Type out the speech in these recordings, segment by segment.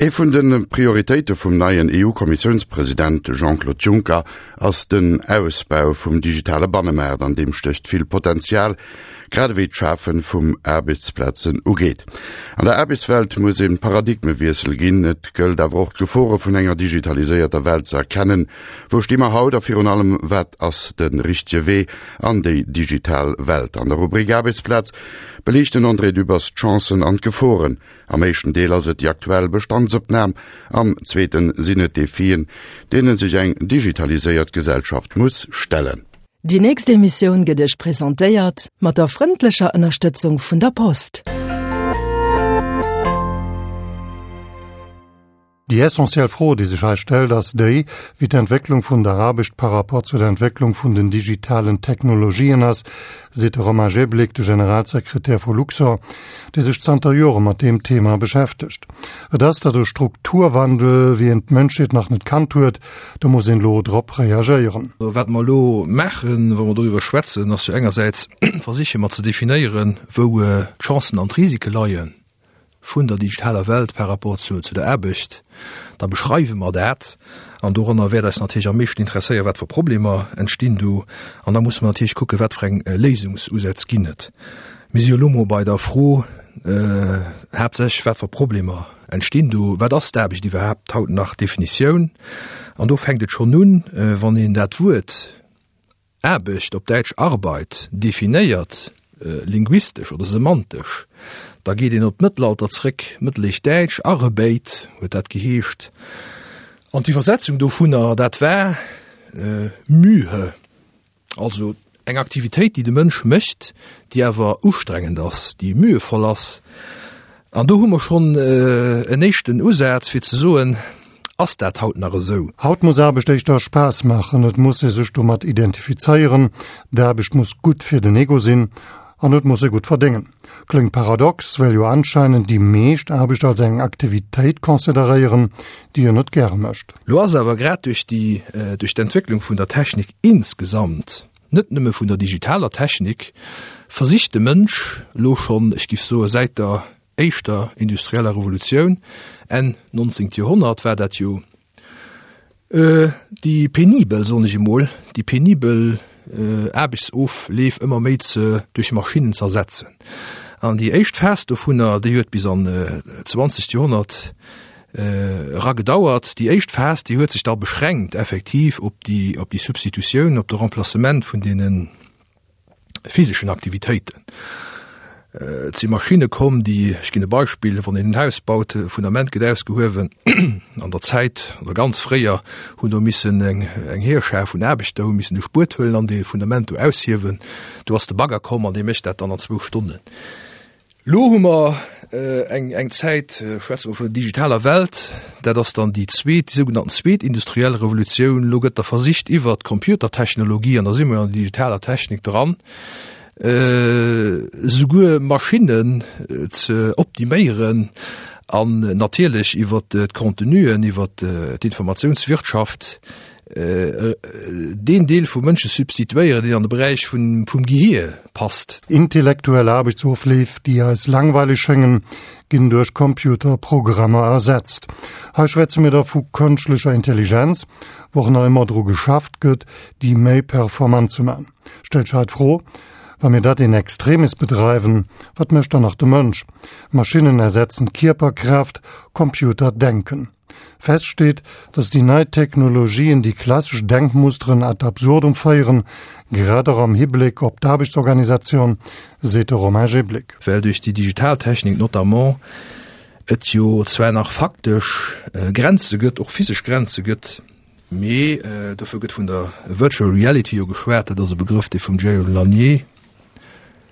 Ee vun de Prioritéite vum neien EU-Kommissiounspresident Jean-Claude Juncker ass den Ausbau vum digitale Bannemaart. An deem stécht vill Potenzial, grad ewéi d'Schafe vum Aarbechtsplazen ugeet. An der Aarbechtswelt muss e Paradigmewiessel ginn. Et gëllt awer och d'Gefore vun enger digitaliséierter Welt ze erkennen. Wou sti mer haut a virun allem wat ass de richtege Wee an déi digital Welt? An der Rubrik Aarbechtsplaz beliicht den André Dübbers d'Chancen an d'Geforen. Am éischten Deel ass et déi aktuell Bestandsopnam, am zweeten sinn et d'Defien, deene sech eng digitaliséiert Gesellschaft muss stellen. Déi nächst Emissioun gëtt Iech presentéiert mat der frëndlecher Ënnerstëtzung vun der Post. Déi essentiell Fro, déi sech hei stellt, ass déi, wéi d'Entwécklung vun der Aarbecht par rapport zu der Entwécklung vun den digitalen Technologien ass, seet de Romain Jeblick, de Generalsekretär vu Luxorr, dee sech zanter Jore mat deem Thema beschäftegt. Et ass dat e Strukturwandel, wéi en d'Mënschheet nach net kannt huet. Do muss een elo drop reagéieren. Wat mer elo maachen, wa mer doriwwer schwätzen, ass jo engersäits versiche mer ze definéieren, wou d'Chancen an d'Risike leien. vun der digitaler Welt par rapport zu der Aarbecht, da beschreiwe mer dat an doranner wäert eis natierlech am meeschten interesséieren, wat fir Problemer entstinn do an da musse mer natierlech kucken, wat fir eng Léisungsusätz ginn et. Mir si jo elo mol bei der Fro haaptsächlech, wat fir Problemer entstinn do, wat ass d'Aarbecht iwwerhaapt haut nach, Definitioun. An do fänkt et schonn un, wann een dat Wuert Aarbecht, op Däitsch Arbeit, definéiert, linguistesch oder semantesch, da geet een op d'Mëttelalter zréck, Mëttelhéichdäitsch, Arbeit huet dat geheescht, an d'Iwwersetzung dovunner, dat war Mühe, also eng Aktivitéit, déi de Mënsch mécht, déi awer ustrengend ass, déi mühevoll ass. An do hu mer schonn en éischten Usaz, fir ze soen, Ass dat haut nach esou? Haut muss Aarbecht éischter Spaass maachen, et muss ee sech domat identifizéieren, d'Aarbecht muss gutt fir den Ego sinn an et muss ee gutt verdéngen. Kléngt paradox, well jo anscheinend déi meescht Aarbecht als eng Aktivitéit consideréieren, déi een net gäre mécht. Lo ass awer grad duerch déi, duerch d'Entwécklung vun der Technik insgesamt, net nëmme vun der digitaler Technik, versicht de Mënsch lo schonn, ech giff soe säit der éischter industrieller Revolutioun, Enn 19. Joerhonnert war dat jo, déi penibel, soen ech emol, déi penibel Aarbechtsofleef ëmmer méi ze duerch Maschinnen ze ersetzen. An déi éischt Phas dovunner, déi huet bis an d'zwanzegt Joerhonnert era gedauert. Déi éischt Phas, déi huet sech da beschränkt effektiv op déi, op déi Substitutioun, op de Remplacement vun deenen physeschen Aktivitéiten. Et si Maschinne komm, déi, ech ginn e Beispill, wann een en Haus baut, e Fundament gëtt ausgehuewen, an der Zäit oder ganz fréier hunn do missen eng eng Heerschar vun Aarbechter hu missen e Spuet huelen an dee Fundament do aushiewen. Do ass de Bagger komm an dee mécht dat dann an zwou Stonnen. Lo hu mer eng eng Zäit, schwätze mer vun der digitaler Welt, dat ass dann déi zweet, déi sougenannten zweet industriell Revolutioun. Lo gëtt da versicht iwwert d'Computertechnologie, an da si mer jo an der digitaler Technik dran, souguer Maschinnen ze optiméieren an natierlech iwwert d'Contenuen, iwwert d'Informatiounswirtschaft, deen Deel vum Mënsche substituéieren, deen an de Beräich vum Gehier passt. Intellektuell Aarbechtsofleef, déi eis langweileg schéngen, ginn duerch Computerprogrammer ersetzt. Hei schwätze mir da vu kënschtlecher Intelligenz, wou och nach ëmmer dru geschafft gëtt, déi méi performant ze man. Stellt sech hei d'Fro, Wa mir dat in extremis bedreiwen, wat mécht dann nach de Mënsch? Maschinnen ersetzen d'Kierperkraaft, Computer denken. Fest steet, datt déi nei Technologien déi klassesch Denkmusteren ad absurdum féieren, grad och am Hibléck op d'Aarbechtsorganisatioun, seet de Romain Jeblick. Well duerch déi digital Technik notamment et jo zwar nach faktesch Grenze gëtt, och physesch Grenze gëtt, mee dofir gëtt vun der Virtual Reality jo geschwat, dat ass e Begrëff, dee vum Jaron Lanier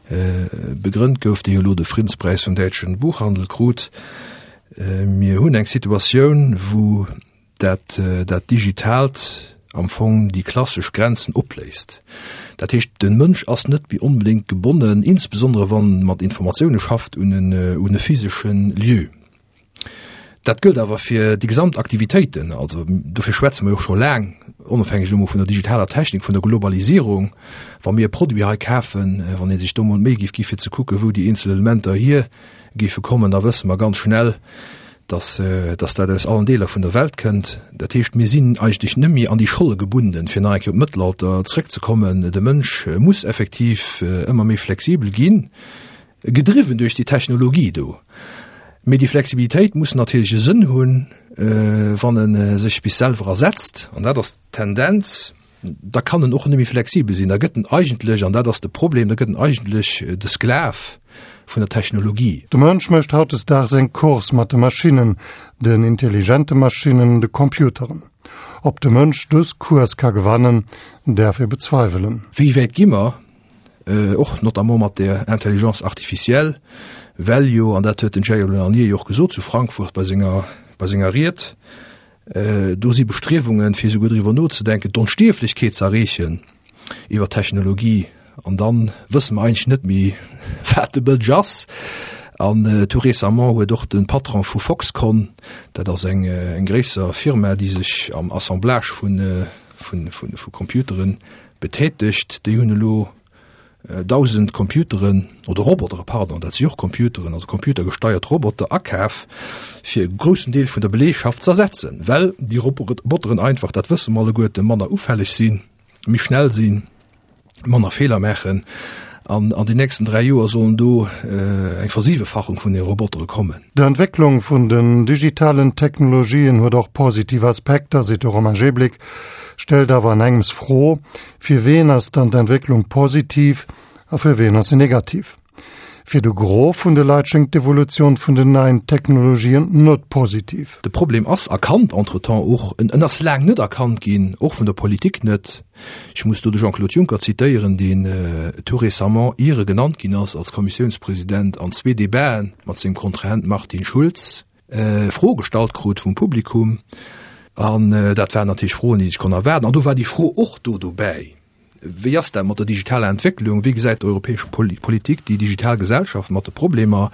Begrënnt gouf, dee jo elo de Friddenspräis vum däitschen Buchhandel krut. Mir hunn eng Situatioun, wou dat, dat Digitaalt am Fong déi klassesch Grenzen opléist. Dat heescht, de Mënsch ass net méi onbedéngt gebonnen, insbesondere wann e mat Informatioune schafft, un en, un e physesche Lieu. Dat gëllt awer fir déi gesamt Aktivitéiten. Also dofir schwätze mer jo scho laang, onofhängeg elo mol vun der digitaler Technik, vun der Globalisierung, wa mir e Produit hei kafen, wann ee sech do mol d'Méi géif gi fir ze kucken, wou déi eenzel Elementer hier géife kommen, da wësse mer ganz schnell, Dass, dass dat aus allen Deeler vun der Welt kënnt. Dat heescht, mir sinn eigentlech net méi an déi Scholle gebunden, fir nach eng Kéier op d'Mëttelalter zrëckzekommen. De Mënsch muss effektiv ëmmer méi flexibel ginn, gedriwwen duerch déi Technologie do. Mee déi Flexibilitéit muss natierlech e Sënn hunn, wann e sech bis selwer ersetzt. An dat ass d'Tendenz. Da kann en och net méi flexibel sinn. Da gëtt en eigentlech, an dat ass de Problem, da gëtt en eigentlech de Sklav vun der Technologie. De Mënsch mécht hautdesdaags eng Course mat de Maschinnen, den intelligente Maschinnen, de Computeren. Ob de Mënsch dës Course ka gewannen, däerf ee bezweiwelen. Wéi wäit gi mer, och notamment mat der Intelligence artificielle, well jo, an dat huet den Jair Lanier jo och gesot zu Frankfurt bei senger, bei senger Ried, Do si Bestriewungen, fir esouguer driwwer nozedenken, d'Onstierflechkeet ze erreechen iwwer Technologie. An da wësse mer eigentlech net méi, wat de Mënsch ass. An tout récemment huet och de Patron vu Foxconn, dat ass eng gréisser Firma, déi sech am Assemblage vu Computeren betätegt, déi hunn elo 1.000 Computeren, oder Robotere, pardon, dat si och Computeren, also computergesteiert Roboter akaf, fir e groussen Deel vun der Beleegschaft z'ersetzen, well déi Roboteren einfach, dat wësse mer alleguerten, manner ufälleg sinn, méi schnell sinn, manner Feeler maachen. An an den nächsten 3 Joer sollen do eng Versiwefachung vun de Robotere kommen. D'Entwécklung vun den digitalen Technologien huet och positiv Aspekter, seet de Romain Jeblick, stellt awer an engems Fro, Fir ween ass dann d'Entwécklung positiv a fir ween ass se negativ? Fir de Gros vun de Leit schéngt d'Evolutioun vun den neien Technologien net positiv. De Problem ass erkannt, entretemps och, en ass laang net erkannt ginn, och vun der Politik net. Ech muss do de Jean-Claude Juncker zitéieren, deen tout récemment, ier e genannt ginn ass als Kommissiounspresident, an zwee Debaten mat sengem Kontrahent Martin Schulz, Froe gestallt krut vum Publikum an dat waren natierlech Froen, déi sech konnt erwaarden. An do war déi Fro och do dobäi, Wéi ass dat mat der digitaler Entwécklung? Wéi gesäit d'europäesch Politik déi digital Gesellschaft mat de Problemer?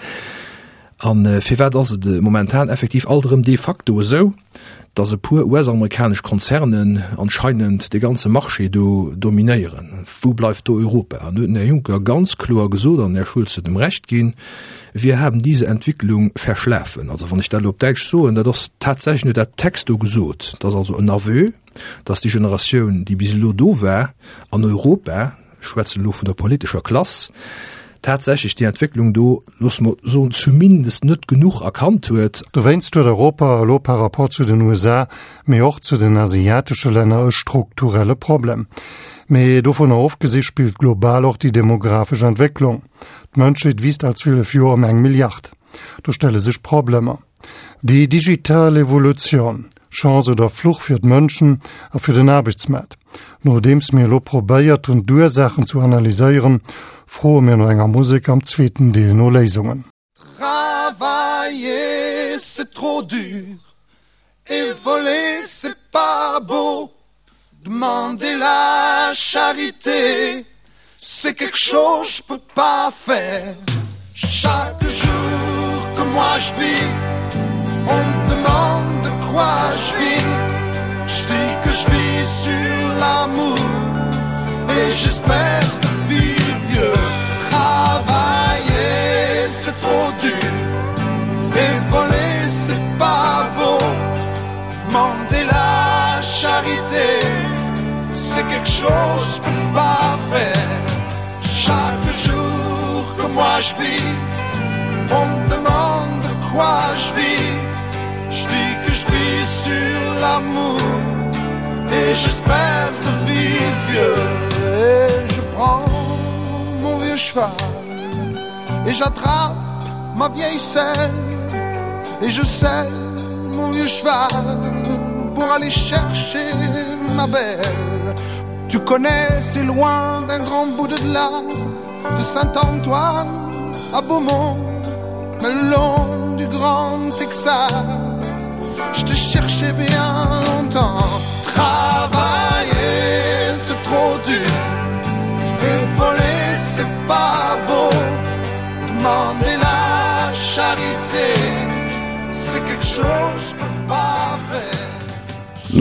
A firwat ass et momentan effektiv alt erëm de facto esou, datt e puer US-amerikanesch Konzernen anscheinend de ganze Marché do dominéieren? Wou bleift do Europa? An do huet den Här Juncker ganz kloer gesot, an den Här Schulz huet em Recht ginn, Wir haben diese Entwicklung verschlafen. Also wann ech dat elo op Däitsch soen, dat ass tatsächlech nur dat Texto gesot, dat ass also en Aveu, dass déi Generatioun, déi bis elo do war an Europa, ech schwätzen elo vun der politescher Klass, tatsächlech déi Entwécklung do, loosse mer soen, zumindest net genuch erkannt huet. Dowéinst huet Europa elo par rapport zu den USA, mee och zu den asiatesche Länner e strukturelle Problem. Mee dovunner ofgesi spillt global och déi demografesch Entwécklung. D'Mënschheet wiisst all 12 Joer ëm eng Milliard. Do stelle sech Problemer. Déi digital Evolutioun, Chance oder Fluch fir d'Mënschen a fir den Aarbechtsmaart? Nodeems mir elo probéiert hunn d'Ursaachen zu analyséieren, froe mir no enger Musek am zweeten Deel no Léisungen. Travailler c'est trop dur et voler c'est pas beau Demander la charité c'est quelque chose je peux pas faire Chaque jour que moi je vis on me demande de quoi je vis Je dis que je vis sur l'amour et j'espère de vivre vieux Travailler c'est trop dur et voler c'est pas beau Demander la charité c'est quelque chose je peux pas faire Chaque jour que moi je vis on me demande de quoi je vis Je dis que je vis sur l'amour et j'espère de vivre vieux Et je prends mon vieux cheval et j'attrape ma vieille selle et je selle mon vieux cheval pour aller chercher ma belle Tu connais c'est loin d'un grand bout de là de Saint-Antoine à Beaumont le long du grand Texas je te cherchais bien longtemps Travailler c'est trop dur et voler c'est pas beau Demander la charité c'est quelque chose je peux pas faire.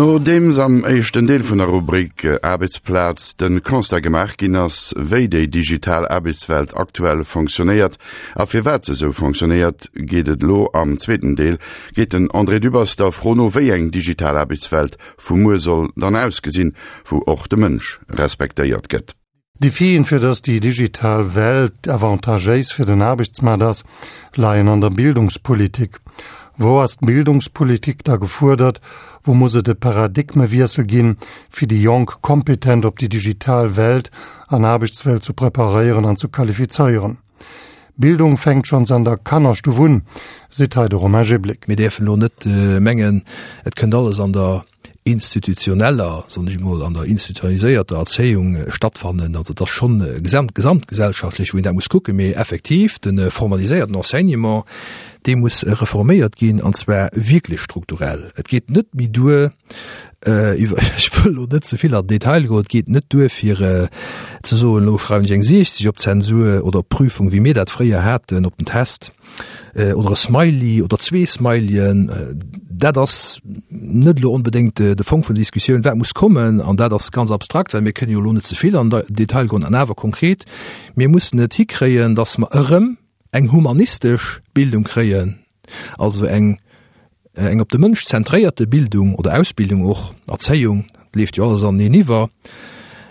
Nodeems am éischten Deel vun der Rubrik Aarbechtsplaz de Constat gemaach ginn ass, wéi déi digital Aarbechtswelt aktuell fonctionnéiert a firwat se esou fonctionnéiert, geet et elo am zweeten Deel geet den André Dübbers der Fro no, wéi eng digital Aarbechtswelt vu muer soll dann ausgesinn, wou och de Mënsch respektéiert gëtt. D'Defien, fir datt déi digital Welt avantagéis fir den Aarbechtsmaart ass, leien an der Bildungspolitik. Wou ass d'Bildungspolitik da gefuerdert? Wou muss et e Paradigmewiessel ginn, fir déi Jonk kompetent op déi digital Welt an Aarbechtswelt zu preparéieren an zu qualifizéieren? Bildung fänkt schonns an der Kannerstuff un, seet hei de Romain Jeblick. Mir däerfen elo net mengen, et kënnt alles an der institutioneller, soen ech emol, an der institutionaliséierter Erzéiung stattfannen. Also et ass schonn gesamt, gesamtgesellschaftlech, wou een dat muss kucken. Mee effektiv, de formaliséierten Enseignement, dee muss reforméiert ginn, an zwar wierklech strukturell. Et geet net méi duer, iwwer, ech wëll elo net ze vill an den Detail goen, et geet net duer fir ze soen, elo schreiwen ech eng 60 op d'Zensur oder op d'Prüfung, wéi mir dat fréier haten op den Test, oder e Smiley oder zwee Smileyen. Dat ass net elo onbedéngt de Fong vun der Diskussioun. Wat muss kommen, an dat ass ganz abstrakt, well mir kënnen jo elo net ze vill an den Detail goen, an awer konkret, mir mussen et hikréien, datt mer erëm eng humanistesch Bildung kréien, also eng eng op de Mënsch zentréierte Bildung oder Ausbildung och, Erzéiung, dat leeft jo alles aneneen iwwer.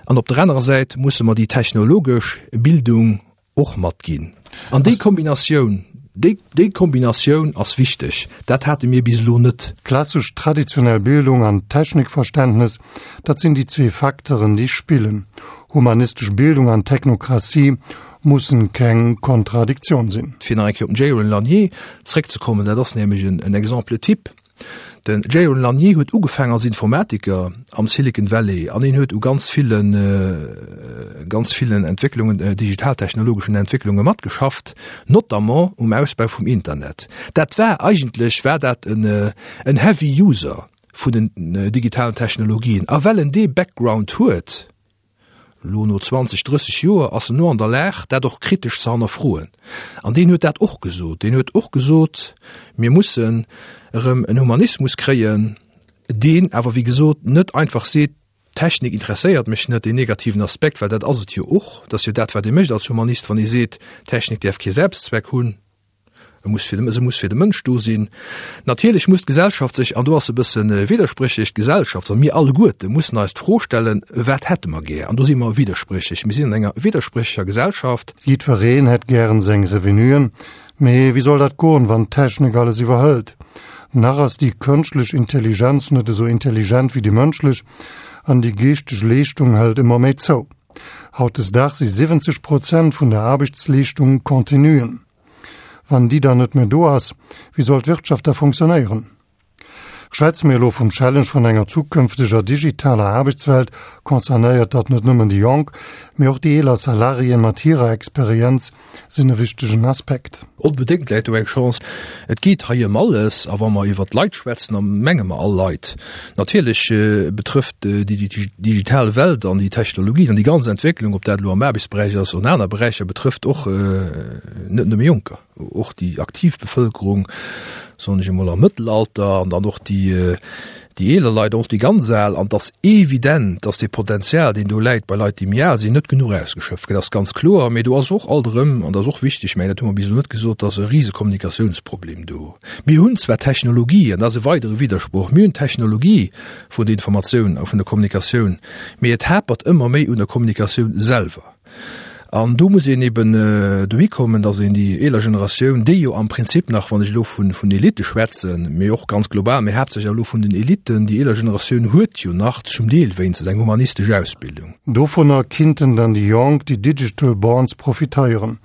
An op der anerer Säit musse mer déi technologesch Bildung och matginn. An déi Kombinatioun, déi, déi Kombinatioun ass wichteg. Dat hate mir bis elo net. Klassesch traditionell Bildung an Technikverständnes, dat sinn déi zwee Facteuren, déi spillen. Humanistesch Bildung an Technokratie mussen keng Kontradiktioun sinn. Fir nach eng Kéier op den Jaron Lanier zréckzekommen, dat ass nämlech en Exemple type. Den Jaron Lanier huet ugefaangen als Informatiker am Silicon Valley an hien huet u ganz villen, ganz villen Entwécklungen, digitaltechnologeschen Entwécklunge matgeschafft, notamment um Ausbau vum Internet. Dat war eigentlech war dat en, en Heavy User vun den digitalen Technologien. A well en dee Background huet, Elo no 20, 30 Joer ass en elo an der Lag, dat och kritesch ze hannerfroen. An deen huet dat och gesot. Deen huet och gesot, mir mussen erëm en Humanismus kréien, deen awer, wéi gesot, net einfach seet, d'Technik interesséiert mech net, deen negativen Aspekt, well dat ass et jo och. Dat ass jo dat, wat ee mécht als Humanist, wann ee seet, d'Technik däerf kee Selbstzweck hunn. E muss fir de, se muss fir de Mënsch do sinn. Natierlech muss d'Gesellschaft sech, an do ass e bësse widderspréchlech, d'Gesellschaft, also mir alleguerte mussen eis d'Fro stellen, Wat hätte mer gär? An do si mer widderspréchlech. Mir sinn an enger widderspréchlecher Gesellschaft. Jiddwereen hätt gären seng Revenuen, mee wéi soll dat goen, wann d'Technik alles iwwerhëlt? Nach ass déi kënschtlech Intelligenz net esou intelligent wéi déi mënschlech an déi geeschteg Leeschtung hëlt ëmmer méi zou. Hautdesdaags si 70 Prozent vun der Aarbechtsleeschtung Contenuen. Wann déi dann net méi do ass, wéi soll d'Wirtschaft da funktionéieren? Schwätze mir elo vum Challenge vun enger zukünfteger digitaler Aarbechtswelt, concernéiert dat net nëmmen déi Jonk, mee och déi eeler Salariéen mat hirer Experienz sinn e wichtegen Aspekt. Onbedéngt läit do eng Chance. Et geet hei ëm alles. A wa mer iwwert d'Leit schwätzen, da menge mer all Leit. Natierlech betrëfft déi digital Welt an déi Technologien an déi ganz Entwécklung, ob dat elo am Aarbechtsberäich ass oder an aner Beräicher, betrëfft och net nëmme Jonker, och déi aktiv Bevëlkerung, soen ech emol, am Mëttelalter an dann och déi déi eeler Leit, och déi ganz al. An et ass evident, dass dee Potenzial, deen do läit bei Leit, déi méi al sinn, net genuch ausgeschöpft gëtt. Dat ass ganz kloer. Mee do ass och alt erëm, an dat ass och wichteg, ech mengen, dat hu mer bis elo net gesot, dass e rise Kommunikatiounsproblem do. Mir hunn zwar Technologie, an dat ass e weidere Widdersproch, mir hunn d'Technologie vun der Informatioun a vun der Kommunikatioun, mee et hapert ëmmer méi un der Kommunikatioun selwer. An do muss een eben dohi kommen, datt een déi eeler Generatioun, déi jo am Prinzip nach, wann ech elo vun vun Elitte schwätzen, mee och ganz global, mee haaptsächlech elo vun den Elitten, déi eeler Generatioun huet jo nach zum Deel wéinstens eng humanistesch Ausbildung. Dovunner kinnten dann déi Jonk, déi Digital Borns, profitéieren.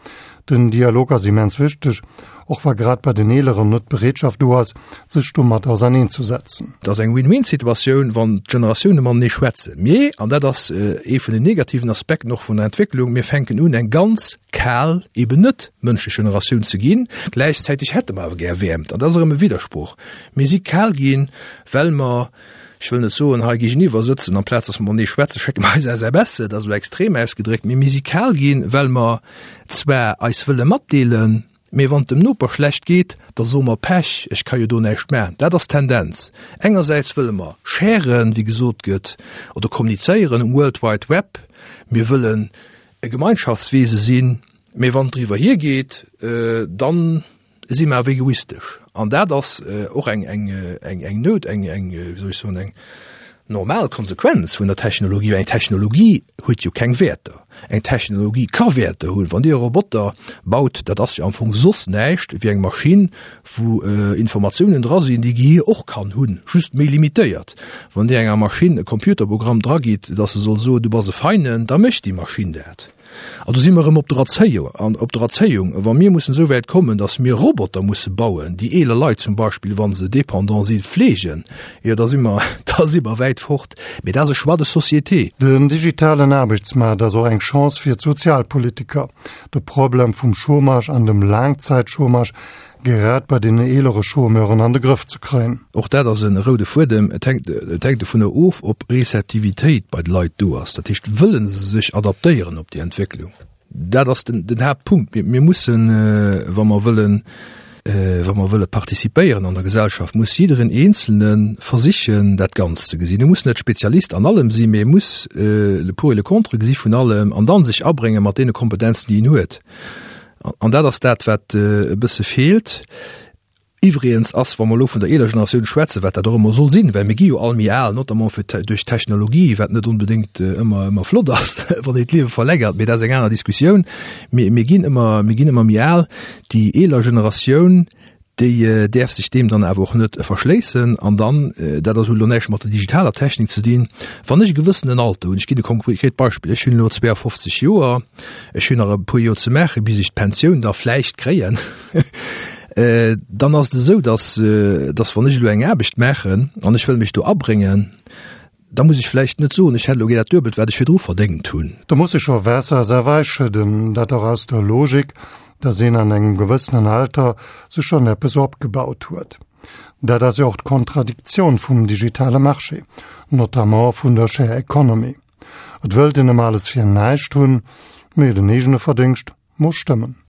Den Dialog ass immens wichteg, och wa grad bei den Eeleren net d'Bereetschaft do ass, sech domat auserneenzesetzen. Et ass eng Win-win-Situatioun, wann d'Generatioune matenee schwätzen. Mee, an dat ass ee vun den negativen Aspekten och vun der Entwécklung, mir fänken un, eng ganz kal, eben net mënschlech Generatioun ze ginn. Gläichzäiteg hätte mer awer gär Wäermt. An dat ass erëm e Widdersproch. Mir si kal ginn, well mer, ech wëll net soen, hei géigeniwwer sëtzen, amplaz datt mer matenee schwätzen, schécke mer eis SMSen, dat ass elo extrem ausgedréckt, mee mir si kal ginn, well mer zwar eis wëlle matdeelen, Mee wann et dem Noper schlecht geet, da soe mer, Pech, ech ka jo do näischt maachen. Dat ass d'Tendenz. Engersäits wëlle mer sharen, wéi gesot gëtt, oder kommunizéieren um World Wide Web. Mir wëllen e Gemeinschaftswese sinn, mee wann et driwwer hiergeet, dann si mer awer egoistesch. An dat ass och eng, eng, eng, eng Nout, eng, eng, wéi soll ech soen, eng normal Konsequenz vun der Technologie, well eng Technologie huet jo keng Wäerter. Eng Technologie ka Wäerter hunn. Wann Dir e Roboter baut, dat ass jo am Fong soss näischt wéi eng Maschinn, wou Informatiounen dra sinn, déi Gehier och kann hunn, just méi limitéiert. Wann Dir enger Maschinn e Computerprogramm dragitt, dass se soll soen, du bass e Feinen, da mécht déi Maschinn dat. An do si mer erëm op der Erzéiung, an op der Erzéiung, wa mir mussen esou wäit kommen, datt mir Roboter musse bauen, déi eeler Leit zum Beispill, wa se dépendant sinn, fleegen, jo da si mer, da si mer wäit fort. Mee dat ass e Choix de société. Den digitalen Aarbechtsmaart ass och eng Chance fir d'Sozialpolitiker, de Problem vum Chômage an dem Laangzäitchômage Grad bei den eelere Chômeuren an de Grëff ze kréien. Och dat ass e roude Fuedem. Et hänkt, et hänkt dovunner of, ob Receptivitéit bei de Leit do ass. Dat heescht, wëlle se sech adaptéieren op déi Entwécklung? Dat ass den, den Haaptpunkt. Mir, mir mussen, wa mer wëllen, wa mer wëlle participéieren an der Gesellschaft, muss jiddereen Eenzelne versichen, dat Ganzt ze gesinn. E muss net Spezialist an allem sinn, mee e muss le pour et le contre gesi vun allem an dann sech abrénge mat deene Kompetenzen, déi en huet. An dat ass dat, wat e bësse feelt. Iwwregens ass, wa mer elo vun der eeler Generatioun schwätzen, wat dat och ëmmer soll sinn, well mir gi jo all méi al, notamment fir duerch d'Technologie, wat net onbedéngt ëmmer ëmmer flott ass, wann een d'Liewe verlängert, mee dat ass eng aner Diskussioun. Mir mir ginn ëmmer mir ginn ëmmer méi al. Déi eeler Generatioun, déi däerf sech deem dann awer och net verschléissen. An dann, dat ass elo näischt mat der digitaler Technik ze dinn, wann ech e gewëssenen Alter hunn, ech ginn e konkret Beispill, ech hunn elo 52 Joer, ech hunn nach e puer Joer ze maachen, bis ech d'Pensioun da vläicht kréien, dann ass et esou, datt, datt wann ech elo eng Aarbecht maachen an ech wëll mech do abréngen, Da muss ech vläicht net soen, ech hätt elo gär dat Duebelt, wat ech virdru verdéngt hunn. Do muss ee scho Waasser a Sawei schëdden, dat och aus der Logik, dass een an engem gewëssenen Alter sech schonn eppes opgebaut huet. Dat ass jo och d'Kontradiktioun vum digitale Marché, notamment vun der Share Economy. Et wëllt een ëmmer alles fir näischt hunn, mee den eegene Verdéngscht muss stëmmen.